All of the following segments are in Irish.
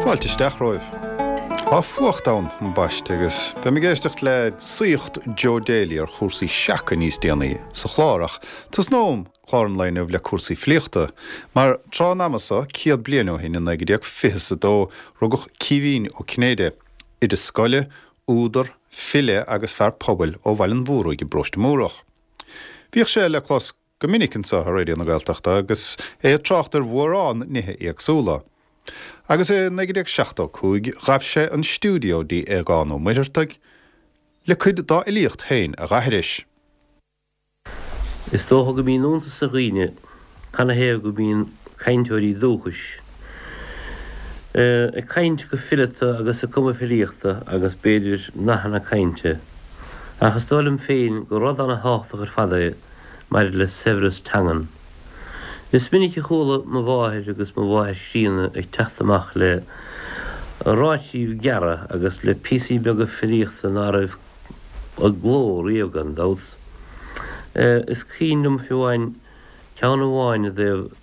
Fáilte isteach romhaibh. Tá fuacht ann, ambaiste, agus beidh mé ag éisteacht le saíocht Joe Daly ar chúrsaí seaca níos déanaí sa chlár, ach tosnóm clár an lae inniu le cúrsaí filíochta, mar tráth an ama so, 100 bliain ó shin, i 1922, rugadh Caoimhín Ó Cinnéide, oide scoile, údar, file agus fear pobail ó Bhaile an Mhúraigh i bparóiste Múrach. Bhíodh sé le clos go minic anseo ar Raidió na Gaeltachta agus é ag trácht ar mhórán nithe éagsúla. Agus i 1975 ghabh sé an stiúideo dtí Aogán Ó Muircheartaigh le cuid dá fhilíocht féin a dh'aithris. Is dócha go mbíonn iontas ar dhaoine canathaobh go mbíonn cainteoirí dúchais ag caint go fileata agus ag cumadh filíochta agus b'fhéidir nathanna cainte. Ach is dóigh liom féin gur rud ana-thábhachtach ar fad é maidir le saibhreas teangan. Is minic a chuala mo mháthair agus mo mháthair chríonna ag teacht amach le ráitíbh gearra agus le píosaí beaga filíochta ná raibh i gcló riamh gan dabht. Is cuimhin liom fiú amháin ceann amháin i dtaobh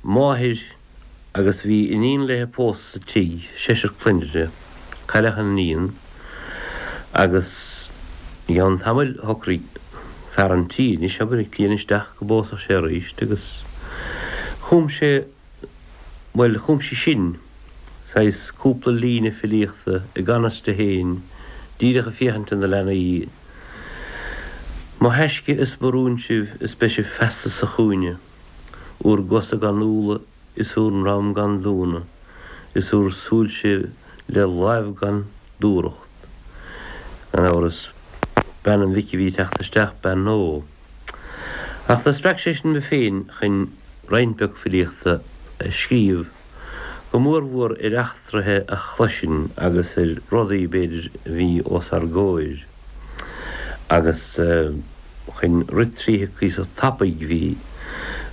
máthair agus bhí iníon léithe pósta sa tigh, seisear clainne uirthi. Cailleadh an iníon agus i gceann tamaill shocraigh fear an tí, anois abair, an cliain isteach go bpósfadh sé arís agus chum sé, bhuel, chum sí sin saghas cúpla líne filíochta i gan fhios di féin, díreach ag féachaint do na leanaí, Mo thaisce is mo rún sibh is beidh sibh feasta sa chúinne. Úr gcosa gan úlla is úr ndrom gan dúnadh, is úr súilse le láimh gan dúthracht. Gan amhras, bean an mhic a bhí ag teacht isteach, bean Nó. Ach do spreag sé sin mé féin chun roinnt beag filíochta a scríobh, go mórmhór ar eachtraithe a chloisinn agus ar rudaí, b'fhéidir, a bhí os ár gcomhair. Agus. Chun rith tríothu cuíosach tapaidh bhí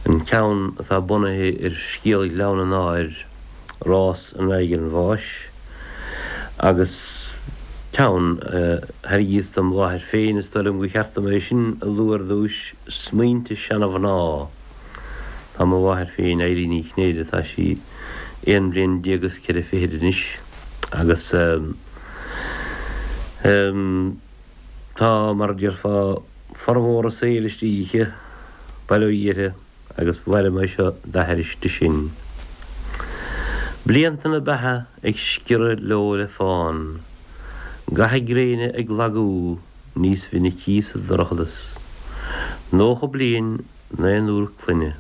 an ceann atá bunaithe ar scéal Ghleann an Áir, Rás in aghaidh an Bháis, agus ceann a thairgíos dom mháthair féin, is dóigh liom gur cheart dom é sin a lua ar dtúis, Smaointe Seana-Mhná. Tá mo mháthair féin, Eilín Ní Chinnéide, tá sí aon bhliain déag is ceithre fichid anois agus. Tá, mar a déarfá, formhór a saoil istigh aici, bail ó Dhia uirthi, agus ba mhaith liom é seo d'aithris di sin. Blianta na beatha ag sciorradh leo le fán, Ga na gréine ag lagú níos minicí sa dorchadas. 90 bliain, naonúr clainne.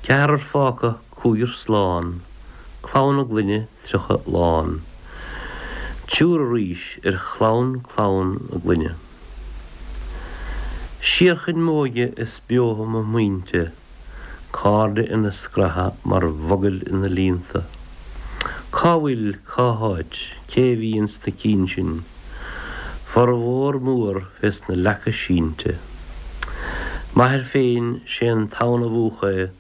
Ceathrar fágtha, cúigear slán, Clann a gclainne 30 lán. Triúr arís ar chlann clann a gclainne. Siar chun m'óige is beotha mo smaointe, Cairde ina scratha mar mhogaill ina líonta. Cá bhfuil, cá háit, cé a bhí ins na cinn sin? Formhór mór fés na leaca sínte. M'athair féin, sé an tonn a mhúch é,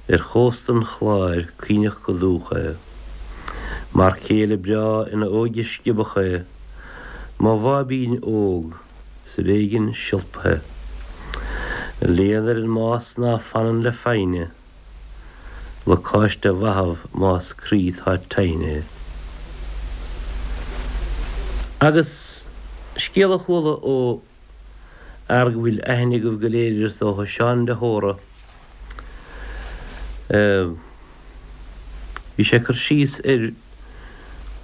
Ar chósta an Chláir caoineadh go dúch é. Mar chéile breá ina óige sciobadh é, Mo bháibín óg 's ar éigin siolpaithe. Léan ar an mbás ná fanann le foighne, Lacáiste a mhaitheamh más croí 'tá tinn é. Agus scéal a chuala ó fhear go bhfuil aithne agaibh go léir air is dócha, Seán de hÓra. Bhí sé ag cur síos ar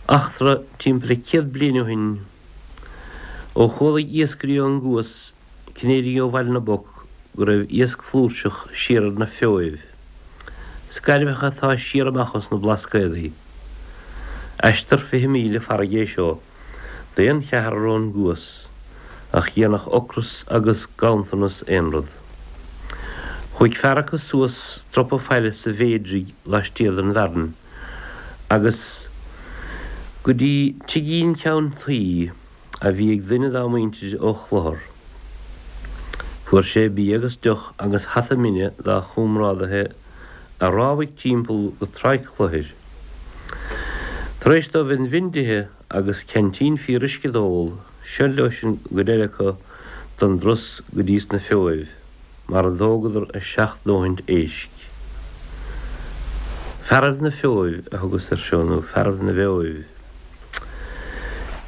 eachtra timpeall le 100 bliain ó shin ó chualaigh iascairí ón gCuas Cinnéidigh ó Bhaile na bPoc go raibh iasc flúirseach siar ar na Feoibh, scairbheacha atá siar amach os na Blascaodaí. Aistear 20 míle farraige é seo d'aon cheathrar ón gCuas, ach dhéanfadh ocras agus ganntanas aon rud. Chuaigh fear acu suas stropa faille sa Mhéidraigh laistiar den Bhfearann agus go dtí tigín ceann tuí a bhí ag duine dá muintir ó Chlochar. Fuair sé bia agus deoch agus hata mine dá chomrádaithe a rámhaigh timpeall go Tráigh Chlochair. Tar éis dóibh an mhin d'ithe agus ceaintín fíoruisce d'ól, seo leosan an gcuid eile acu don dturas go dtí sna Feoibh, mar a dtógadar a seacht ndóthaint éisc. Fearaibh na Feoibh a thugas air seo, nó Fearaibh na bhFeoibh.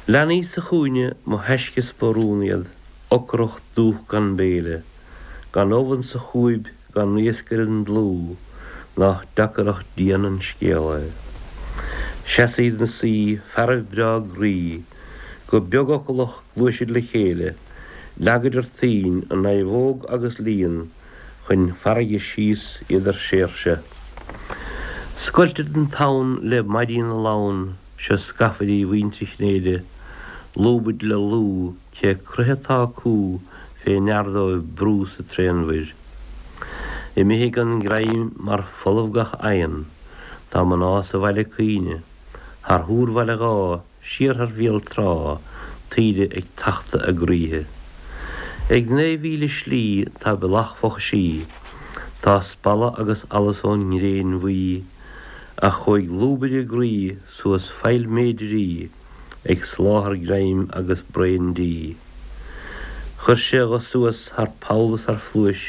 Leanaí sa chúinne, mo thaisce is mo rún iad, ocrach dúch gan béile, gan ubh insa chúib, gan iasc ar an dlúth, nách deacair ach dian an scéal é. Sheasaid 'na suí, fearaibh breá groí, go beagfhocalach ghluaisid le chéile, leagaidir toinn, a naomhóg agus líon, chun farraige síos iad ar séirse. Scoiltead an tonn le maidí na lann, seo scafairí mhuintir Chinnéide, lúbaid le lúth, Cé croitheadh atá acu fé ndear dóibh brú sa tréanmhuir. Imithe gan greim mar folamh gach oigheann, tá mná sa bhaile ag caoineadh, thar thúr Bhaile Dháith, siar thar Bhéal Trá, taoide ag tachtadh a gcroíthe. Ag 9,000 slí tá bealach Fochaisí, tá spalladh agus allas ón ngréin bhuí, ach chuaigh lúbaire a gcroí suas Faill Méidirí, ag soláthar greim agus braon dí. Chuir sé dho suas thar poll is thar phluais,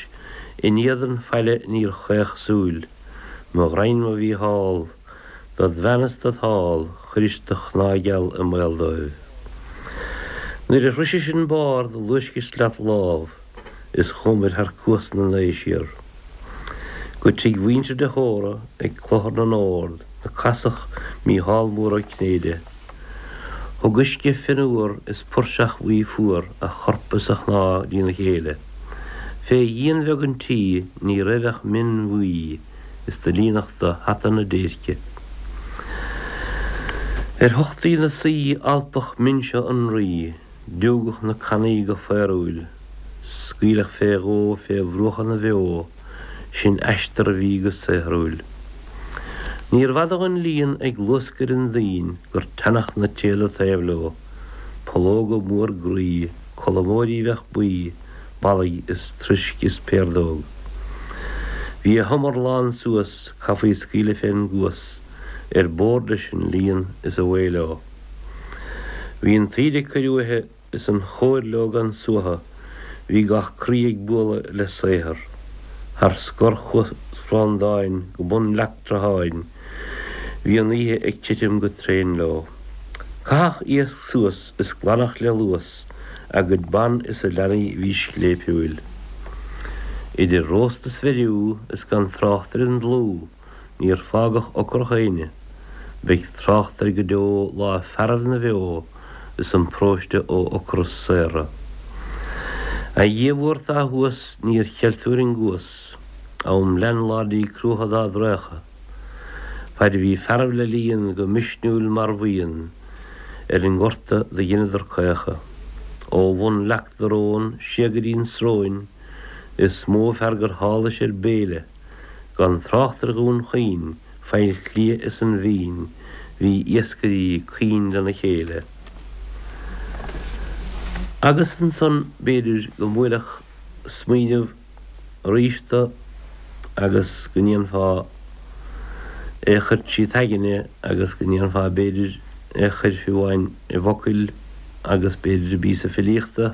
in éadan faille níor chaoch súil. Mo ghraidhin mo Mhícheál, dod bhean is dod sháil, chuiris do chnámh gheal i mbaol dóibh. Nuair a shroisis an barr do luaiscis leat lámh is chuamair thar Cuas na nAo siar. Go tigh mhuintir de hÓra ag Clochar na nOrd 'na casadh Mícheál Mór Ó Cinnéide. Thug uisce fionnuar is puirseach bhuí fuar a chorp is a chnámh dtína chéile. Fé dhíon bheag an tí ní raibh ach min bhuí is do líonadh do hata na déirce. Ar thochtaí 'na suí alpadh min seo an Rí. Diúgadh na cannaí go faorúil, scaoileadh fé dhó fé bhruacha na bhfeo, sin aistear a bhí go saothrúil. Níorbh fhada dhon líon ag luascadh ar an dtoinn gur teannadh na téada taobh leo, pollóga mór groí, colamóirí bheadh buí, ballaigh is troisc is piardóg. Bhí a humar lán suas, caithfí scaoileadh fén gcuas, ar bord leis an líon is away leo. Bhí an taoide ag cur uaithe is an chóir leo gan suaitheadh, bhí gach croí ag bualadh le saothar. Thar scor Chuas Bhreandáin go bun Leac Trátháin, bhí an oíche ag titim go tréan leo. Caitheadh iasc suas is glanadh le luas a gcuid ban is a leanaí bhí scléipiúil. Idir róst is bheiriú is gan trácht ar an dlúth, Níor fágadh ocrach éinne. Beidh trácht air go deo lá fearaibh na bhfeo is an paróiste ó ocras saortha. A Dhia mhór atá thuas níor cheil tú ar an gcuas, am leanláidí cruacha dá dtraochadh. Faid a bhí fearaibh le líon go misniúil mar bhuíon ar an ngorta do dheineadar caochadh. Ó bhun Leac Dorón siar go dtí'n Sróin is mó fear gur tháluis ar béile. Gan trácht ar Dhún Chaoin, Faill Cliath is an Mhín, bhí iascairí caoin lena chéile. Agus ansan b'fhéidir go mbuailfeadh smaoineamh arís do agus go ndéanfá é a chur tríd t'aigne agus go ndéanfá b'fhéidir é a chur fiú amháin i bhfocail agus b'fhéidir i bpíosa filíochta.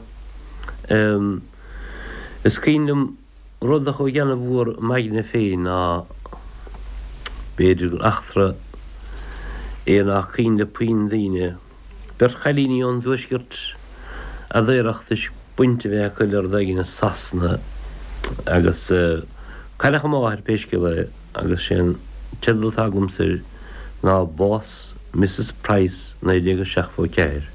Is cuimhin liom Rud a chuaigh ana-mhór i m'aigne féin ná b'fhéidir gur eachtra é nach cuimhin le puinn daoine, beirt chailíní ón dtuaisceart a daoradh toisc baint a bheith acu le rud éigin i Sasana agus cailleadh a máthair pé scéal é agus sé an teideal atá agamsa air ná Bás Mrs Price 1974.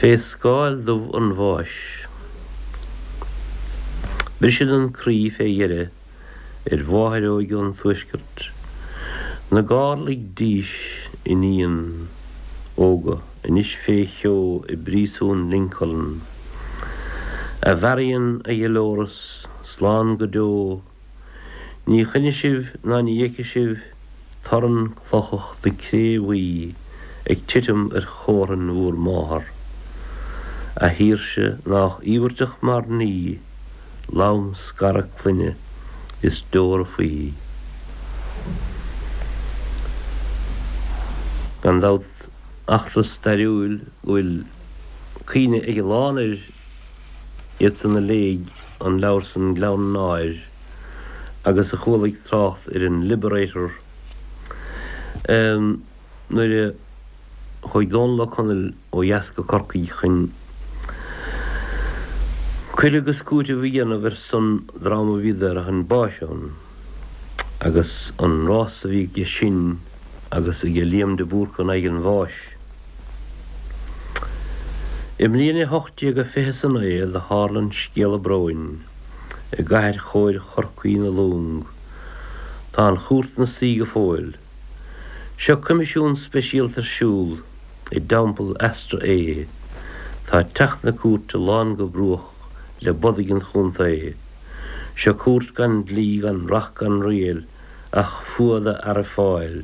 Fé scáil dubh an bháis. Briseann an croí fé dheireadh ar mháthair óig ón tuaisceart, na gárlaigh dís iníon óga anois fé cheo i bpríosún Lincoln. A Mharion, a Dholores, slán go deo, Ní chluinfidh sibh ná ní fheicfidh sibh torann clochach na cré bhuí ag titim ar chómhrainn bhúr máthar. A shaoirse nách íobhairteach mar ní, lom-scaradh clainne is deora faoi. Gan dabht, eachtra stairiúil go bhfuil cuimhne ag a lán air, iad san a léigh an leabhar san Gleann an Áir agus a chualaigh trácht ar an Liberator nuair a chuaigh Dónall Ó Conaill ó dheas go Corcaigh chun cur agus cúiteamh a dhéanamh ar son dream a bhí daortha chun báis ann agus an rás a bhí aige sin agus aige Liam de Búrca in aghaidh an bháis. I mbliain a 1829 do tharla an scéala bróin i gcathair chóir Chorcaí na Long. Tá an chúirt 'na suí go fóill. Seo coimisiún speisialta ar siúl i dTeampall Astraea. Tá teach na cúirte lán go bruach le bodaigh an chontae. Seo cúirt gan dlí gan reacht gan riail ach fuath do fhearaibh Fáil.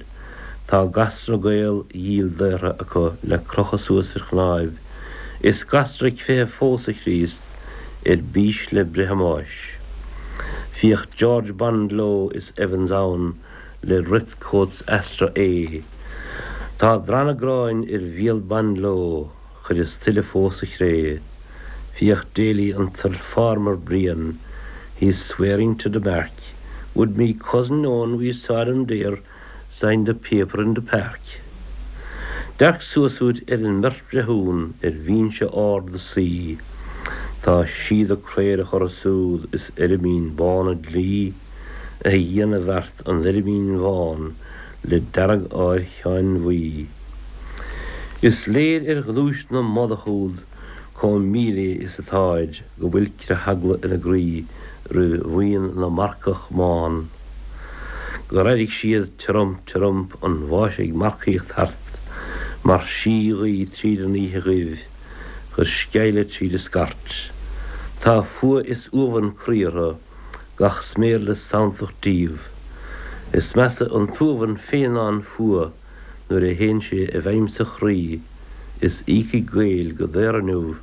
Tá gasra Gael dhíl daortha acu le crochadh suas ar chnáimh. Is gasra ag feitheamh fós, a Chríost, ar bís le breith a mbáis. Féach George Bondlow is Evans ann le redcoats Astraea. Tá drannadh gráin ar bhéal Bondlow chuireas tuilleadh fós sa chré. Féach Daly an t-farmer bréan, he's swearing to the mark, Would me cousin own we saw them there sign the paper in the park. Dearc suas uait ar an mbeirt bhreithiún ar bhinse ard a suí, Tá síoda craorach orthu súd is eirmín bán an dlí, A Dhia na bhfeart an eirmín bhán le dearg-ádh ar Sheáin Bhuí. Is léir ar ghnúis na mbodach úd comh míléith is atáid go bhfuil creatheagla ina gcroí roimh bhuíon na marcach mbán, gur airigh siad tiorump tiorump an bháis ag marcaíocht thart mar sí-ghaoth tríd an oíche dhuibh, chuir sceimhle tríd a scairt. Tá fuath is uamhan croí orthu. gach sméar le sanntacht díobh. Is measa an t-uamhan féin ná an fuath nuair a théann sé i bhfeidhm sa chroí is íocfaidh Gaeil go daor inniu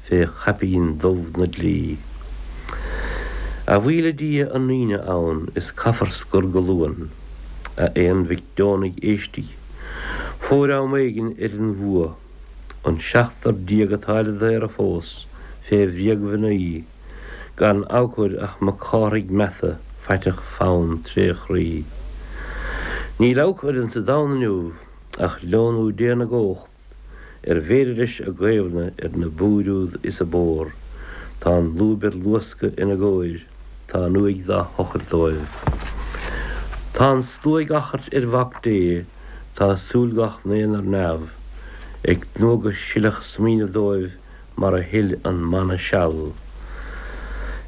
fé chaipín dubh na dlí. A bhuí le Dia an Aoine ann is caithfear scor go luan. A aon mhic deonaigh éistigh. Fóir am éigin ar an bhfuath. An 17 atá le daoradh fós fé bhréagmhnaoi. Gan abhcóid ach Mac Cárthaigh Meata faiteach fann tréchroí. Níl abhcóid insa domhan inniu ach leonú Dé na gcomhacht ar bhféidir leis a gcaomhnadh ar na búir úd is a bpór. Tá an lúib ar luascadh ina gcomhair, tá an uaigh dá thochailt dóibh. Tá an slua ag achairt ar Mhac Dé, tá súil gach n-aon ar neamh, ag tnúth go silfeadh smaoineamh dóibh mar a shil an manna seal.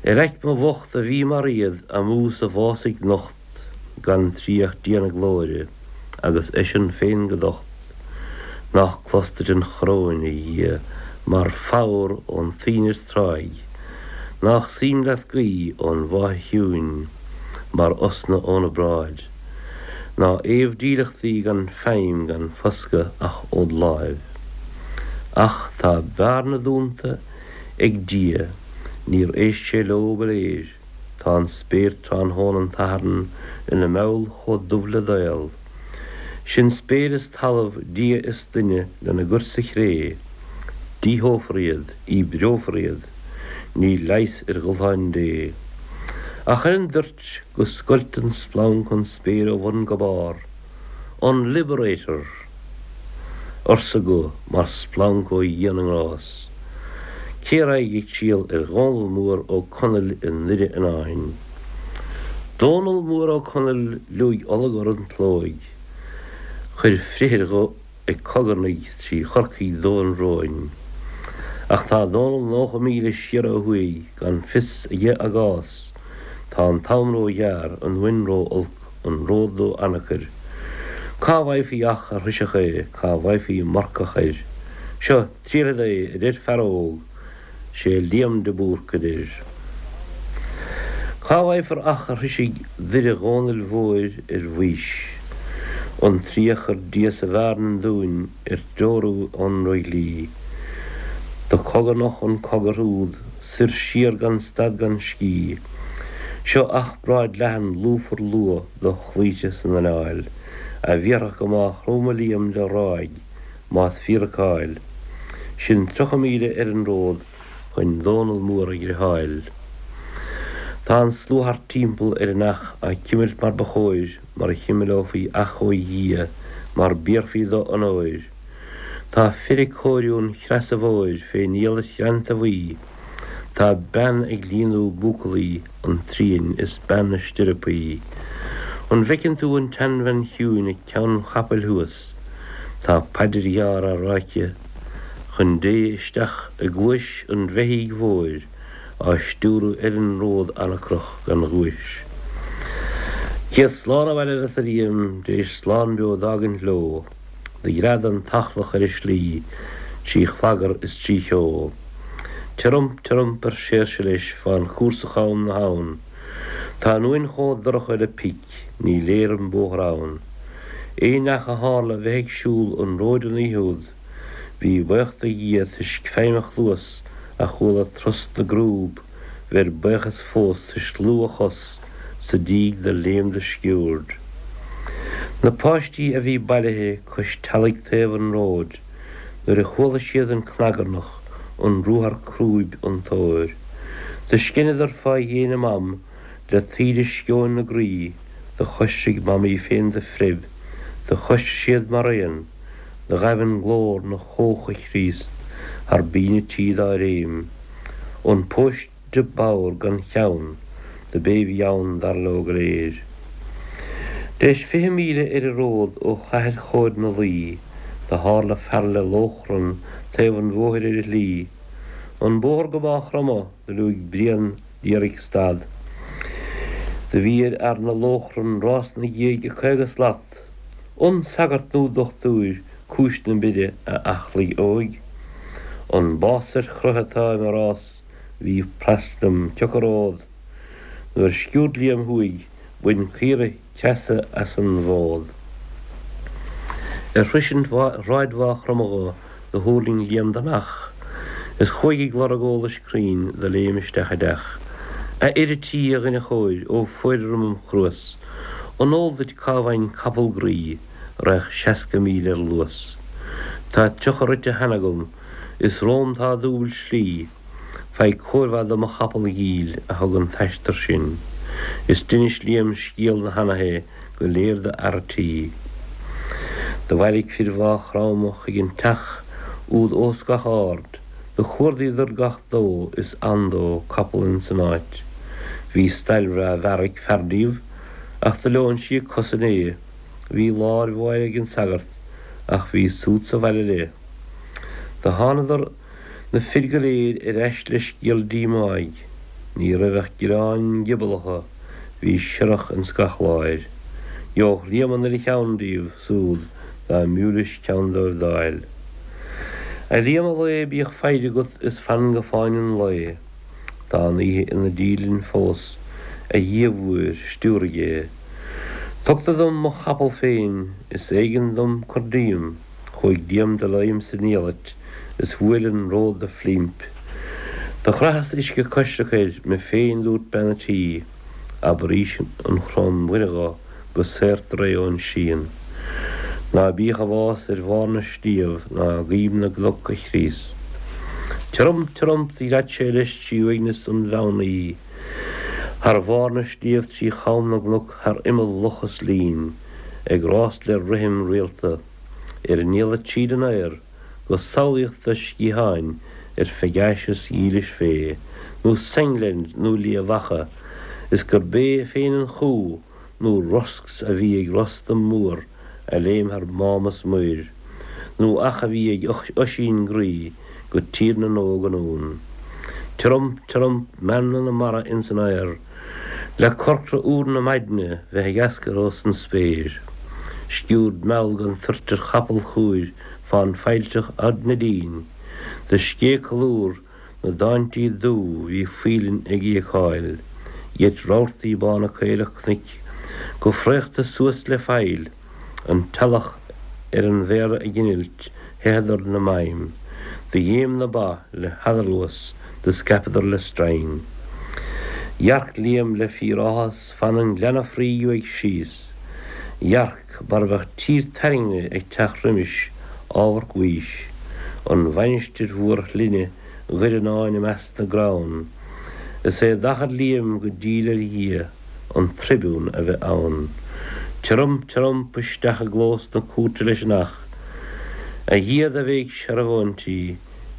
Ar aicme bhocht a bhí mar iad amú sa bhfásaigh nocht gan triath Dia na glóire agus eisean féin go docht, nách clos duit an choróin, a Dhia, mar phodhar ón toinn ar tráigh, nách suim leat guí ón bhFáithe chiúin mar osna óna bráid. Ná fhaomh dílleachtaí gan feidhm gan foscadh ach ód láimh. Ach tá bearna dúnta ag Dia, níor éist sé leo go léir, tá an spéir tráthnóna an tSathairn ina meall chomh dubh le daol. Sin spéir is talamh, Dia is duine lena gcur sa chré. Díothófar iad, díbreofar iad, níl leigheas ar dhúshláin Dé. Ach ar an dtoirt, go scoilt an splanc an spéir ó bhun go barr, An Liberator! Arsa guth mar splanc ó Dhia na nGrás. Cé raghaidh ag triall ar Dhónall Mór Ó Conaill i nDoire Fhionáin? Dónall Mór Ó Conaill liúigh olagor an tslóigh, chuir frithir dho ag cogarnaigh trí Chorcaigh dubh an bhróin. Ach tá Dónall 90 míle siar ó thuaidh gan fios aige á gcás. Tá an t-am ró-ghearr, an mhuin ró-olc, an ród ró-anacair. Cá bhfaighfí each a shroisfeadh é, cá bhfaighfí marcach air? Seo, triailfead é, a deir fear óg, 'Sé Liam de Búrc a deir. Cá bhfaighfear each a shroisfidh Doire Dhónaill Mhóir ar bhaois? An triath a chuir Dia sa bhfearn dúinn ar treorú ón ndroighlí. Do chogarnach an cogar úd soir siar gan stad gan scíth. Seo each bráid leathan lúfar luath do chloíte san anáil, a bhéarfadh go Mágh Chromtha Liam de ráig más fíor a cáil. Sin 30 míle ar an ród chun Dónall Mór a ghriotháil. Tá an slua thart timpeall ar an each á cimilt mar ba chóir, mar a chimileofaí each ó Dhia mar b'iarrfaí do onóir. Tá fir ag cóiriú an chreasa mhóir fén iallait ghreanta bhuí. Tá bean ag líonadh buacaillí an tsriain is bean na stirreapaí. An bhfeiceann tú an tseanbhean chiúin ag ceann an chapaill thuas? Tá paidir ghearr á rá aici chun Dé isteach i gcluais an bheithígh mhóir á stiúradh ar an ród anacrach gan ghuais. Céad slán abhaile leat a Liam, d'éis slán beo d'fhágaint leo. Do ghread an t-eachlach ar a slí trí chlagar is trí cheo. Tiorump, tiorump ar Seoirse leis fán chúrsa cham na habhann. Tá an uain chomh dorcha le pic, ní léir an bóthar ann. Aon neach a tharla bheith ag siúl an róid an oíche úd, bhí baoch do Dhia toisc feidhm a chluas a chuala trost na gcrúb, bheir baochas fós toisc lúth a chos sa díg do léim do sciúird. Na páistí a bhí bailithe cois teallaigh taobh an róid nuair a chuala siad an cnagarnach, an ruathar crúib, an tóir. Do sceineadar fá dhéin a mam le taoide sceoin 'na gcroí, do choisricfeadh mamaí féin do phreib, do choisricfeadh siad mar aon, do ghaibh an glór 'na chóch a Chríost thar binn a tí dá réim. An póiste bodhar gan cheann do b'é bhí ann dar leo go léir. D'éis 20 míle ar an ród ó chathair chóir na Laoi do tharla fear le lóchrann taobh an bhóthair ar a shlí. An bóthar go Mágh Chromtha do liúigh Brian d'iarraidh stad. Do bhí ar fhear na lóchrann rás 'na dhiaidh ag 50 slat. An sagart nó dochtúir cúis na mire a eachlaigh óig? An bás ar chroich atá i mo rás bhí pras liom cioca ród? Nuair sciúrd Liam thuaidh bhain caora creasa as an bhfód. Ar shroisint shráid Mhaigh Chromtha dho do thuirling Liam den each is chuaigh ag lorg eolais cruinn do léim isteach i dteach. A fhir a' tí, a dhuine chóir, ó fóir orm im chruas, an eol duit cá bhfaighinn capall groí a raghadh 60 míle ar luas? Tá 30 rite cheana agam is romham tá dúbailt slí. Faigh cóir mhaith do mo chapall dhil a thug an t-aistear sin. Is d'inis Liam scéal na hanaithe go léir do fhear a' tí. Do bhailigh fir Mhaigh Chromtha chuig an teach úd ós gach aird. Do chuardaíodar gach dó is andó capall ins an áit. Bhí stail bhreá mhear ag fear díobh ach do leon sí a cos inné. Bhí láir mhóir ag an sagart ach bhí súd sa bhaile léi. Do thánadar na fir go léir ar ais le scéal díomáigh. Ní raibh ach gioráin giobalacha bhí siorrach ins gach láir. Gheobhadh Liam an uile cheann díobh súd dá mb'fhiú leis ceann dóibh d'fháil. A Liam a lao bíodh foighde agat is fan go fáinne an lae. Tá an oíche ina dílinn fós, a Dhia mhóir, stiúraigh é. Tugtar dom mo chapall féin, is éigean dom cur díom. Chuaigh Liam de léim san iallait is bhuail an ród de phlimp. Do chraitheas uisce coisricthe air me féin dúirt bean a' tí, abair aois an Chrom Mhuire dho go saortar é ón srian. Ná bíodh a bhás ar bharr na sliabh ná i gcoim na gcnoc a Chríost. Tiorump tiorump do ghread sé leis trí uaigneas an mheán oíche, thar bharr na sliabh trí cham na gcnoc thar imeall loch is linn, ag rás le rithim rialta ar an iallait tríd an aer go samhlaíoch do sciatháin ar Phegasus dhílis fé, nó Sengland nó Liath Mhacha, is gurb é féin an chú nó rosc a bhí ag Rostam mór a léim thar mám is muir, nó each a bhí ag Oisín groí go Tír na nÓg anonn. Tiorump, tiorump, meanma na mara ins an aer, Le corcra úr na maidne bheith ag eascar ós an spéir. Sciúrd mheall gan toirt ar chapall chúir fán failltreach Audh na Dín. Do scéith colúr na dtáintí dubh bhí faoileáin ag íocáil. Gheit rabhartaí bána caorach cnoic go fraochta suas le faill. An t-eallach ar an bhféar ag innilt, theitheadar 'na maidhm. Do ghéim na ba le headarluas do scaipeadar le stroighin. Dhearc Liam le fíor-áthas fan an ghleanna fraoigh uaidh síos. Dhearc mar a bheadh tír tairngre ag teacht roimis amharc Mhaois, an mhainistir mhór shlinne Dhoireannáin i measc na gcrann. Is é d'achair Liam go diail ar Dhia an tribune a bheith ann. Tiorump tiorump isteach i gclós na cúirte leis an each. A Dhia do bhéic searbhóintí,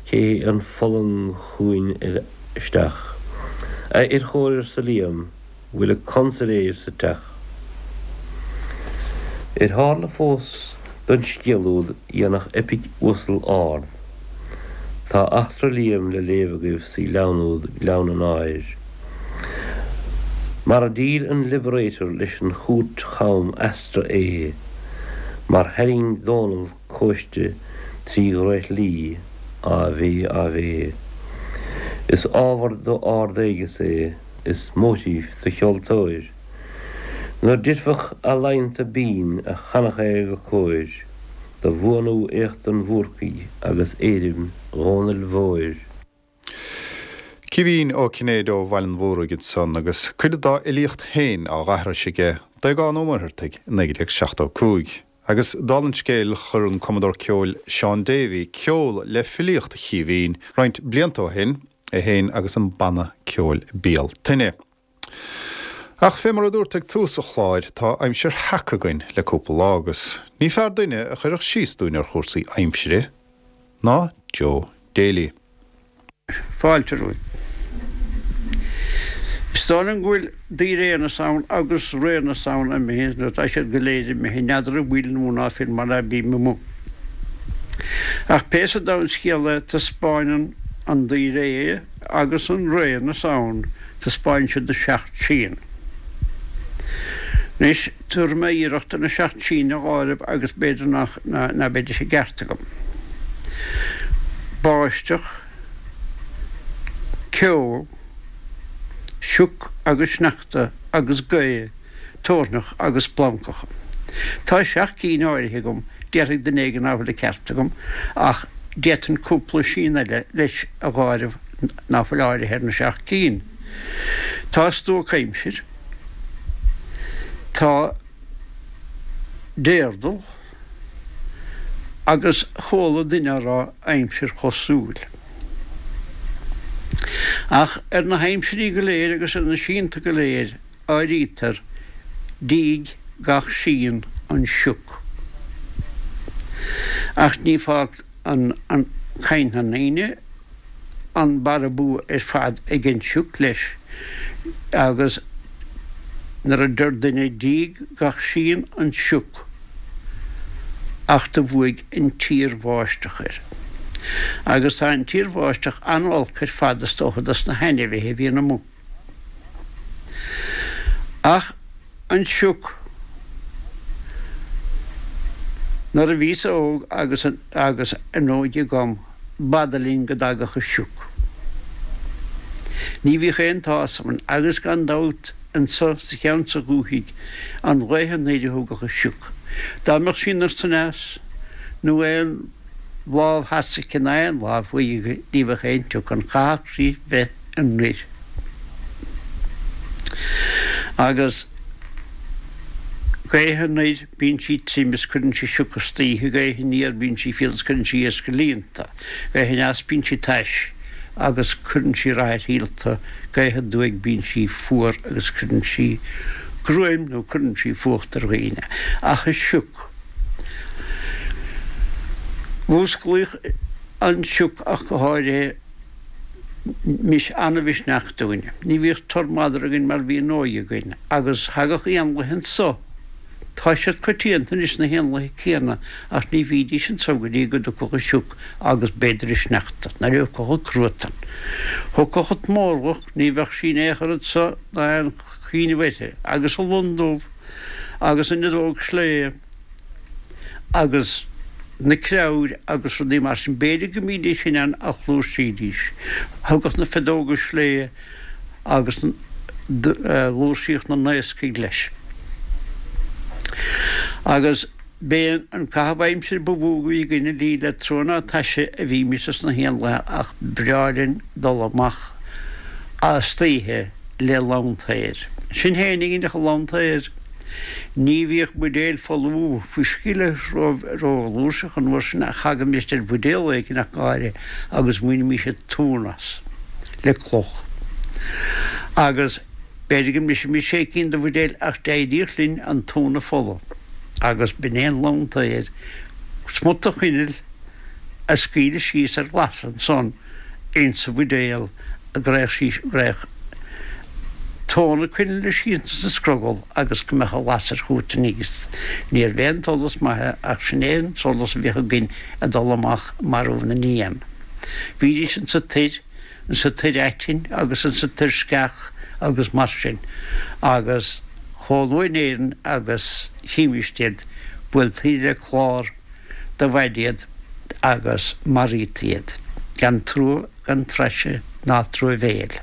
cé hé an fulang chugainn isteach? A fhir chóir arsa Liam, bhfuil an consailéir sa teach? Ar tharla fós don scéal úd dhéanfadh eipic uasal ard? Tá eachtra Liam le léamh agaibh sa ghleann úd Gleann an Áir. Mar a dhíol an Liberator leis an chúirt cham easra é, mar tharraing Dónall cóiste 3 dhraoithlí, Ave, Ave. Is ábhar do ard-éigeas é. Is móitíf do cheoltóir. Nuair d'oirfeadh ealaíonta binn a chanfadh é go cóir, do bhuanú éacht an Bhúrcaigh agus éirim Dhónaill Mhóir. Caoimhín Ó Cinnéide ó Bhaile an Mhúraigh ansan agus cuid dá fhilíocht féin á aithris aige d'Aogán Ó Muircheartaigh i 1975. Agus dála an scéil chuir an cumadóir ceoil Seán Davey ceol le filíocht Chaoimhín roinnt blianta ó shin, é féin agus an banna ceoil Bealtaine. Ach fé mar a dúrt ag tús an chláir, tá aimsir sheaca againn le cúpla lá agus ní fearr duine a chuirfeadh síos dúinn ar chúrsaí aimsire ná Joe Daly. Fáilte romhaibh. Is dóigh liom go bhfuil daoiréanna na Samhna agus ré na Samhna imithe, nó tá siad go léir imithe, n'fheadar an bhfuil nó ná fuil mar ná bím amuigh. Ach pé sa domhan scéal é, taispeáineann an daoiré agus an ré na Samhna, taispeáineann siad na seacht síon. Anois, tabharfaidh mé iarracht ar na seacht sín a dh'áireamh agus b'fhéidir nach, ná beidís i gceart agam. Báisteach, ceo, sioc agus sneachta agus gaoth, toirneach agus splancacha. Tá seacht gcinn áirithe agam, déarfaidh duine éigin ná fuil an ceart agam, ach d'fhéadfainn cúpla sín eile leis a dh'áireamh ná fuil áirithe ar na seacht gcinn. Tá stuacaimsir, tá déardal, agus chuala duine á rá aimsir chosúil. Ach ar na haimsirí go léir agus ar na síonta go léir áirítear díg gach síon an sioc. Ach ní fág an caint na ndaoine an barra bua ar fad ag an sioc leis agus nuair a deir duine díg gach síon an sioc ach do bhuaigh an tsíorbháisteach air. Agus tá an tsíorbháisteach an-olc ar fad is dócha dos na hainmhithe a bhíonn amuigh. Ach an sioc, nuair a bhíos óg agus agus an óige agam, b'fhada linn go dtagadh an sioc. Ní bhíodh aon tsásamh ann agus gan dabht anso sa cheann sa dhúthaigh an ghaoth anoir a thugadh an sioc. Dá mbeadh sí anoir 's aneas nó aon lámh theas aici ná aon lámh thuaidh aici ní bheadh aon tsioc ann, chaithfeadh sí bheith anoir. Agus gaoth anoir bíonn sí tirim is cuireann sí sioc istoíche, gaoth aniar bíonn sí fial is cuireann sí iasc ar líonta, gaoth aneas bíonn sí tais agus cuireann sí rath ar shíolta, gaoth aduaidh bíonn sí fuar agus cuireann sí gruaim nó cuireann sí fuacht ar dhaoine. Ach an sioc. Mhúsclaíodh an sioc ach go háirithe mis an-mhisneach dúinn. Ní bhíodh tur madra againn mar bhí an óige againn agus thagadh éanlaithe anso. Tá siad coitianta anois na héanlaithe céanna ach ní bhídís anso go dtí go dtiocfadh an sioc agus b'fhéidir an sneachta, nuair a thiocfadh an cruatan. Thiocfadh an t-mórlach, ní bheadh sí in aon chor anso ná aon chuimhneamh uirthi, agus an lon dubh agus an fheadóg sléibhe agus na creabhair agus rudaí mar sin. B'fhéidir go mbídís in ann ach fhlúirsídís. Thugadh na feadóga sléibhe agus fhlúirsíodh na naoscaigh leis. Agus. B'é an caitheamh aimsire ba mhó a bhí againn ní le trua ná taise a bhímis sna héanlaithe ach b'bhreá linn dul amach istoíche le lantair. Sinn féin againn ach an lantair. Ní bhíodh buidéil folamh fuisce rófhlúirseach an uair sin ach thagaimis ar bhuidéal éigin ach go háirithe agus bhainimis an tóin as le cloch. Agus b'fhéidir go mbrisfimis sé cinn de bhuidéil ach d'éiríodh linn an tóin a pholladh agus b'in é an lantair, smut de choinneal a scaoileadh síos ar lasadh ansan insa bhuidéal go raghadh sí, go raghadh tóin na coinnle síos insa scrogall agus go mbeadh an lasair chugat aníos. Níorbh é an solas maith é ach sin é an solas a bhíodh againn ag dul amach ag marú na n-éan. Bhídís insa toir, insa toir aitinn agus insa toir sceach agus mar sin agus chomh luath in Éirinn agus chímist iad, buailtí le clár de mhaide iad agus maraítaí iad gan trua gan taise ná truamhéil.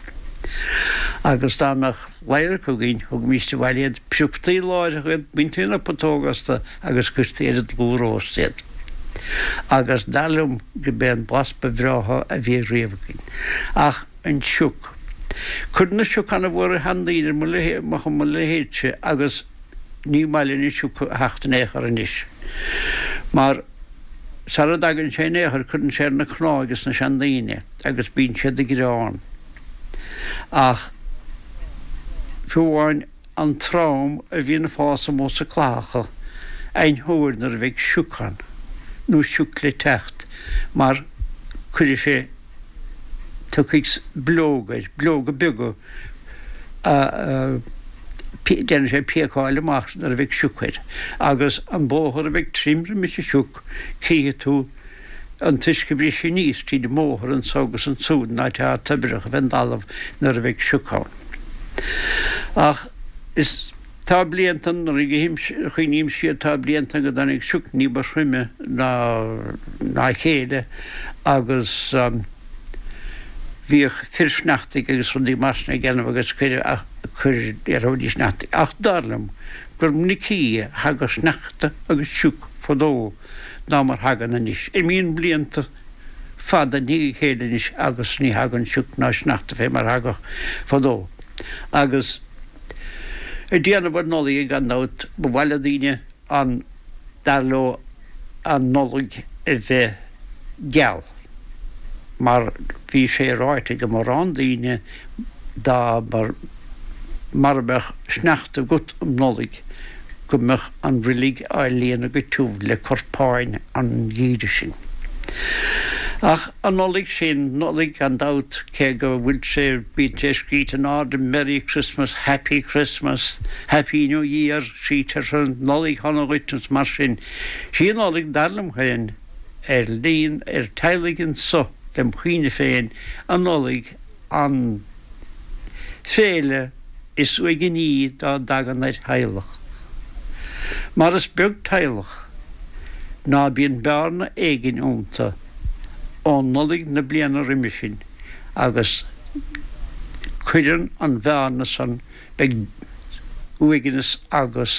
Agus dá mbeadh ladhracha againn, thugaimíst abhaile iad, pioctaí láithreach iad, baintí na putóga astu agus cuirtí ar an dlúthróst iad. Agus dar liom go b'é an blas ba bhreátha a bhí riamh againn. Ach an sioc. Cuireann an sioc ana-mhór ar sheandaoine ar mo leithéidse agus ní maith linn an sioc a theacht in aon chor anois. Mar sara dtagann sé in aon chor cuireann sé ar na cnámha ages na seandaoine agus bíonn siad ag gearán. Ach fiú amháin an trom a bhíonn ag fás amuigh sa clathacha aithneofar nuair a bheidh sioc ann nó sioc le teacht mar cuirfidh sé tiocfaidh bileoga air, bileoga beaga a déanfaidh sé píocáil amach nuair a bheidh sioc air. Agus an bóthar a bheidh tirim roimis an sioc, cífidh tú an t-uisce ag briseadh aníos tríd an mbóthar anso agus ansúd in áit atá toibreach fén dtalamh nuair a bheidh sioc ann. Ach is. Tá blianta, nuair a chuimhním siar, tá blianta go dtáinig sioc ní ba throime ná a chéile agus bhíodh fir sneachtaidh agus rudaí mar sin ag déanamh agus cuireadh, cuir, déarfaidís sneachtaidh. Ach dar liom gur minicí a thagadh sneachta agus sioc fadó ná mar thagann anois. Imíonn blianta fada i ndiaidh a chéile anois agus ní thagann sioc ná sneachta fé mar thagadh fadó. Agus. Ag déanamh ar Nollaig gan dabht, ba mhaith le daoine an, dar leo, an Nollaig a bheith geal, mar bhí sé ráite ag mórán daoine dá mba, mara mbeadh sneachta agat um Nollaig go mbeadh an roilig á líonadh go tiubh le corpáin an gheimhridh sin. Ach an Nollaig sin, Nollaig gan dabht, cé go bhfuil sé, bíonn sé scríte in airde Merry Christmas, Happy Christmas, Happy New Year, scrítear Nollaig Shona dhuit is mar sin. Sí an Nollaig, dar liom féin, ar líon, ar teaghlaigh anso, lem chuimhne féin, an Nollaig, an féile is uaigní dá dtagann ar theaghlach. Mar is beag teaghlach ná bíonn bearna éigin iontu ó Nollaig na bliana roimhe sin agus cuireann an bhearna san beidh uaigneas agus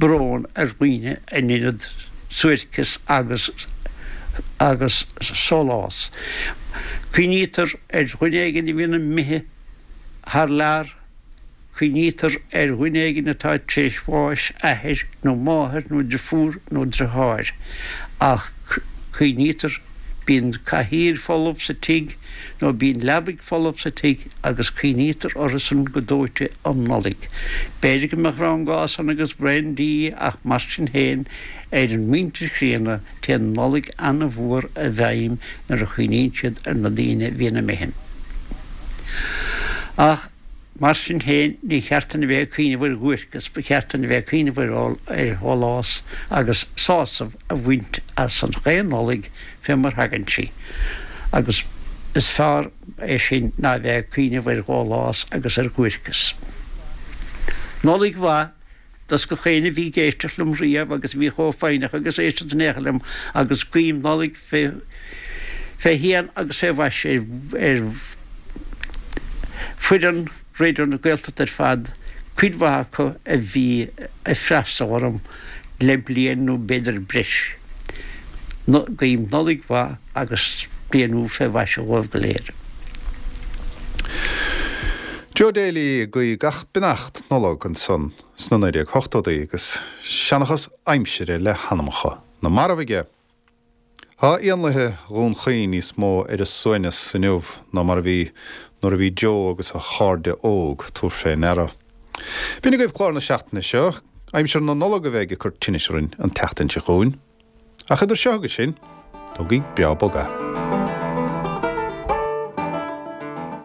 brón ar dhaoine in ionad suairceas agus agus sólás. Cuimhnítear ar dhuine éigin a bhíonn imithe thar lear, cuimhnítear ar dhuine éigin atá tar éis bháis, athair nó máthair nó driofúr nó driotháir, ach cuimhnítear, bíonn cathaoir folamh sa tigh nó bíonn leabaidh folamh sa tigh agus cuimhnítear orthusan go dóite um Nollaig. B'fhéidir go mbeadh rang gás ann agus braon dí ach mar sin féin ar an muintir chríonna téann Nollaig an-mhór i bhfeidhm nuair a chuimhníonn siad ar na daoine a bhíonn imithe. Ach mar sin féin ní cheart dúinn a bheith ag cuimhneamh ar dhuairceas, ba cheart dúinn a bheith ag cuimhneamh ar shólás agus sásamh a bhaint as an chaon Nollaig fé mar thagann sí. Agus is fearr é sin ná a bheith ag cuimhneamh ar dhólás agus ar dhuairceas. Nollaig mhaith dos gach éinne a bhí ag éisteacht liom riamh agus a bhí chomh foighneach agus éisteacht in aon chor liom agus guím Nollaig fé fé shéan agus fé mhaise ar foireann Raidió na Gaeltachta ar fad, cuid mhaith acu a bhí ag freastal orm. Le bliain nó b'fhéidir breis. Guím Nollaig mhaith agus bliain úr fé mhaise dhóibh go léir. Joe Daly ag guí gach beannacht Nollag ansan sna 1980idí agus seanchas aimsire le hanamacha na marbh aige. Tá éanlaithe Dhún Chaoin níos mó ar a suaimhneas inniu ná mar a bhí nuair a bhí Joe agus a chairde óg, tabhair fé ndeara. B'in agaibh clár na seachtaine seo. Aimsir na Nollag a bheidh ag cur tinnis orainn an tseachtain seo chugainn. Ach idir seo agus sin, tógaigí breá bog é.